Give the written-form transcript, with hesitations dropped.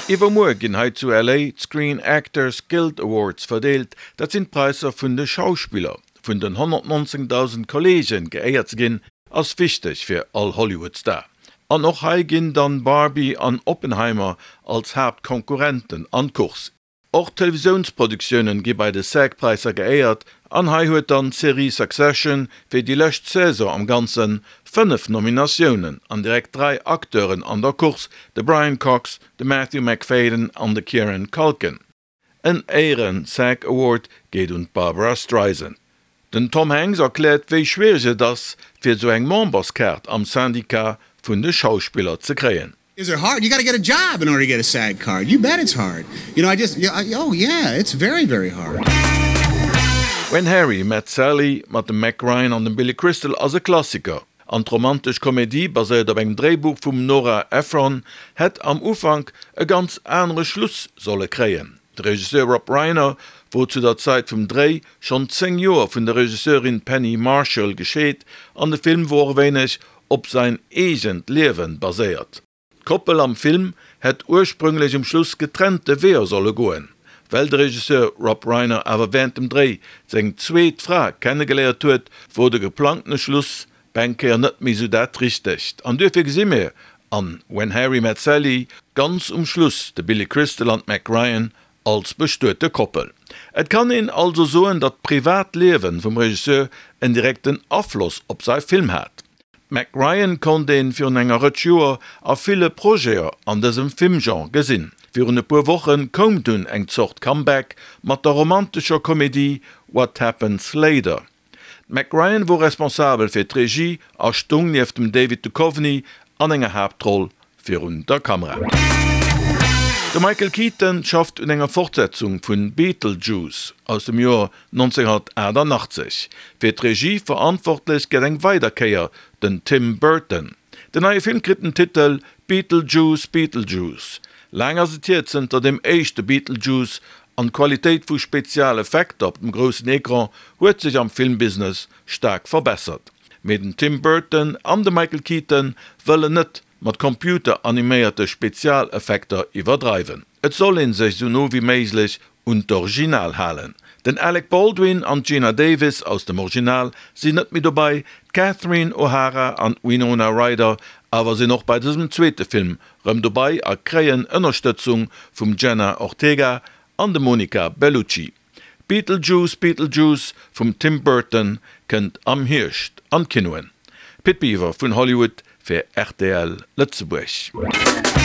Iwwermuer ginn hei zu LA d'Screen Actors Guild Awards verdeelt. Dat sinn d'Präisser vun de Schauspiller. Vun den 119.000 Kolleegen geéiert ze ginn, ass wichteg fir all Hollywood-Star. An och hei ginn dann Barbie an Oppenheimer als Haaptkonkurrenten an d'Course. Och Televisiounsproduktioune gi bei de SAG-Präisser geéiert an hei huet dann d'Serie Succession fir déi lescht Saison am Ganze 5 Nominatiounen an direkt 3 Acteuren an der Course, de Brian Cox, de Matthew Macfadyen an de Kieran Culkin. En Éieren-SAG Award geet un d'Barbra Streisand. Den Tom Hanks erkläert wéi schwiereg et ass fir esou eng Memberskaart am Syndicat vun de Schauspiller ze kréien. Is it hard? You gotta get a job in order to get a SAG card. You bet it's hard. You know, I just, oh yeah, it's very, very hard. When Harry Met Sally mat dem Meg Ryan an dem Billy Crystal ass e Klassiker. An d'romantesch Komedie, baséiert op engem Dréibuch vum Nora Ephron, hätt am Ufank e ganz anere Schluss solle kréien. De Regisseur Rob Reiner wor zu der Zait vum Dréi schonn 10 Joer vun der Regisseurin Penny Marshall gescheet an de Film wor och e wéineg op sain eegent Liewen baséiert. D'Koppel am Film hätt ursprünglech um Schluss getrennte Weeër solle goen. Well de Regisseur Rob Reiner awer wärend dem Dréi seng zweet Fra kennegeléiert huet, wor de geplangtene Schluss beng Kéier net méi sou dat Richtegt. An duerfir gesi mir an When Harry Met Sally ganz um Schluss de Billy Crystal an d'Meg Ryan als bestuete Koppel. Et kann een also soen, datt d'privat Liewen vum Regisseur en direkten Afloss op sai Film hat. D'Meg Ryan konnt een virun enger Rëtsch Joer a ville Projeter an dësem Filmgenre gesinn. Virun e puer Wochen koum dunn eng Zort Comeback mat der romantescher Komedie What Happens Later. D'Meg Ryan wor responsabel fir d'Regie a stung nieft dem David Duchovny an enger Haaptroll virun der Kamera. De Michael Keaton schafft un enger Fortsetzung vun Beetlejuice aus dem Joer 1988. Fir d'Regie verantwortlech gëtt eng weider Kéier den Tim Burton. Den neie Film kritt den Titel Beetlejuice Beetlejuice. Laang ass et hier zënter dem éischte Beetlejuice an d'Qualitéit vu Spezialeffekter op dem groussen Ecran huet sech am Filmbusiness staark verbessert. Mee den Tim Burton an de Michael Keaton wëllen net mat computeraniméierte Spezialeffekter iwwerdreiwen. Et soll een sech sou no wéi méiglech un d'Original halen. Den Alec Baldwin an d'Geena Davis aus dem Original sinn net méi dobei, d'Catherine O'Hara an d'Winona Ryder awer sinn och bei dësem zweete Film rëm dobei a kréien Ënnerstëtzung vum Jenna Ortega an dem Monica Bellucci. Beetlejuice Beetlejuice vum Tim Burton kënnt am Hierscht an d'Kinoen. Pit Biwer vun Hollywood fir rtl Lëtzebuerg.